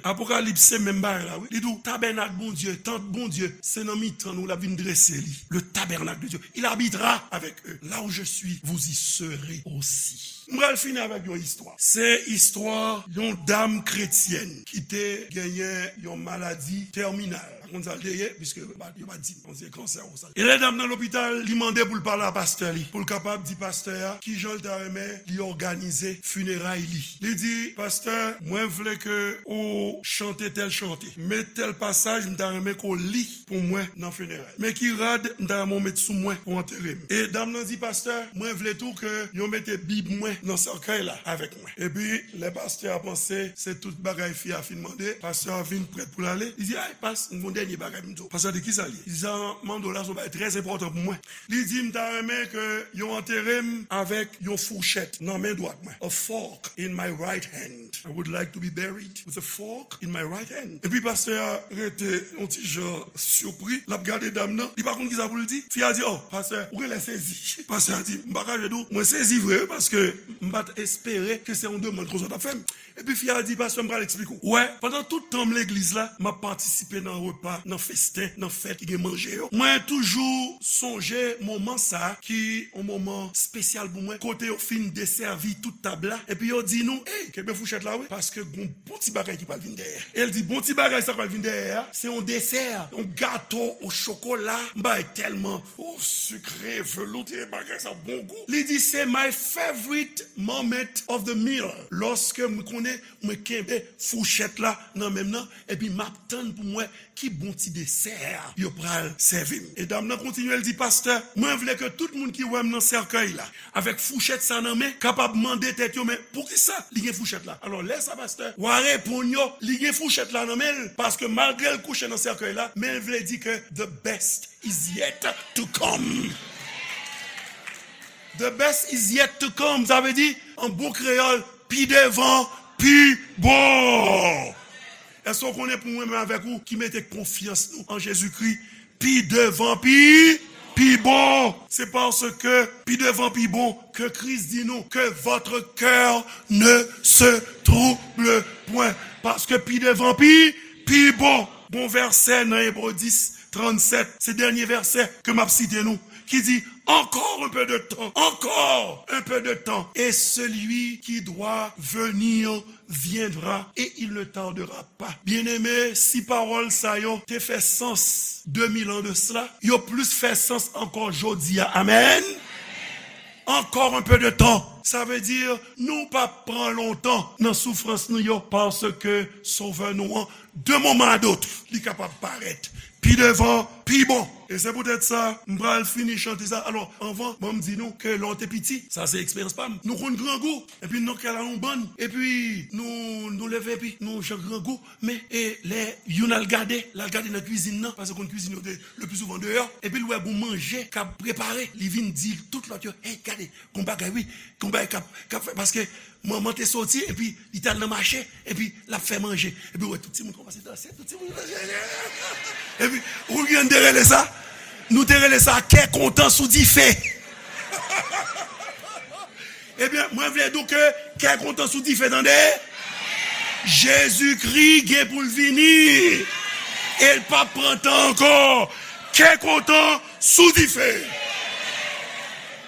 Apokalips se menm bagay la, wi. Li di w, tabènak Bondye, tant Bondye, se nan mitan nou l ap vin drese li. Le tabernacle de Dieu, il habitera avec eux. Là où je suis, vous y serez aussi. M pral fini avèk yon istwa. Se istwa yon dam kretyèn ki te genyen yon maladi tèminal. Pa konn sa l te ye, piske yo pa, yo pa di m. Bon, se kansè ou sa. E lè dam nan lopital, li mande pou l pale a pastè li, pou l kapab di pastè a kijan l ta renmen li òganize fineray li. Li di, pastè, mwen vle ke ou chante tèl chante. Men tèl pasaj, m ta renmen ke w li pou mwen nan fineray. Men ki rad m ta renmen w met sou mwen pou antere m. E dam nan di, pastè, mwen vle tou ke yo mete Bib mwen nan sèkèy la avèk mwen. Epi, lè pastè a panse se tout bagay fi a fin mande, pastè a vin prèt pou l ale. Li di, ay, pas, m gon dènye bagay pou m di w. Pastè a di, kisa l ye? Li di, sa m ap mande w la, se yon bagay trè enpòtan pou mwen. Li di, m ta renmen ke yo antere m avèk yon fouchèt nan men dwat mwen. A fork in my right hand. I would like to be buried with a fork in my right hand. Epi pastè a rete yon ti jan sipri, l ap gade dam nan, li pa konn kisa pou l di. Fi a di, oh, pastè, ou genlè sezi. Pastè a di, m pa kache di w, mwen sezi vre, wi, paske m pa t espere ke se yon demann konsa w t ap fè m. Epi fi a di, pastè, m pral eksplike w. Wè, pandan tout tan m legliz la, m ap patisipe nan repa, nan festen, nan fèt ki gen manje yo. Mwen toujou sonje moman sa a ki yon moman espesyal pou mwen, kote yo fin desèvi tout tab la, epi yo di nou, ey, kenbe fouchèt la, wi, paske gon bon ti bagay ki pral vin dèyè. E l di, bon ti bagay sa k pral vin dèyè a, se yon desè, yon gato o chokola, yon bagay tèlman, o, sikre, velouté, bagay sa bon gou. Li di, se my favorite moment of the meal. Lòske m konnen mwen kenbe fouchèt la nan men m nan, epi m ap tann pou m wè ki bon ti desè yo pral sèvi m. E dam nan kontinye, l di, pastè, mwen vle ke tout moun ki wè m nan sèkèy la, avèk fouchèt sa nan men, kapab mande tèt yo, men poukisa li gen fouchèt la? Alò, lè sa, pastè, w a reponn yo, li gen fouchèt la nan men l, paske malgre l kouche nan sèkèy la, men l vle di ke the best is yet to come. The best is yet to come. Sa vle di, an bon kreyòl, pi devan, pi bon. Èske w konnen pou mwen menm avèk ou ki mete konfyans nou an Jezikri, pi devan, pi, pi bon? Se paske pi devan, pi bon ke Kris di nou, que votre cœur ne se trouble point. Paske pi devan, pi, pi bon. Gon vèsè nan Ebre dis, trannsèt, se dènye vèsè ke m ap site nou, ki di, encore un peu de temps, encore un peu de temps, et celui qui doit venir viendra, et il ne tardera pas. Byeneme, si pawòl sa yo te fè sans de mil an de sela, yo plis fè sans ankò jodi a. Amèn. Encore un peu de temps. Sa vle di, nou p ap pran lontan nan soufrans nou yo, paske Sovè nou an, de moman a dot, li kapab parèt pi devan, pi bon. E se poutèt sa, m pral fini chante sa. Alò, anvan, ban m di nou ke lè w te piti, sa se eksperyans pa m, nou konn grangou, epi nou nan kay la yon bann, epi nou, nou leve, epi nou jan grangou, men, e lè youn al gade, l al gade nan kwizin nan, paske konn kwizin yo te le pli souvan deyò, epi l wè gon manje k ap prepare, li vin di tout lòt yo, hey, gade, gon bagay wi, gon bagay k ap, k ap fè, paske manman te soti, epi li t al nan mache, epi l ap fè manje, epi w wè tout timoun kòmanse danse, tout timoun danse, epi, ou konn te rele sa, nou te rele sa kè kontan sou dife. Ebyen, mwen vle di w ke kè kontan sou dife, tande. Jezikri gen pou l vini. E l p ap pran tan ankò. Kè kontan sou dife.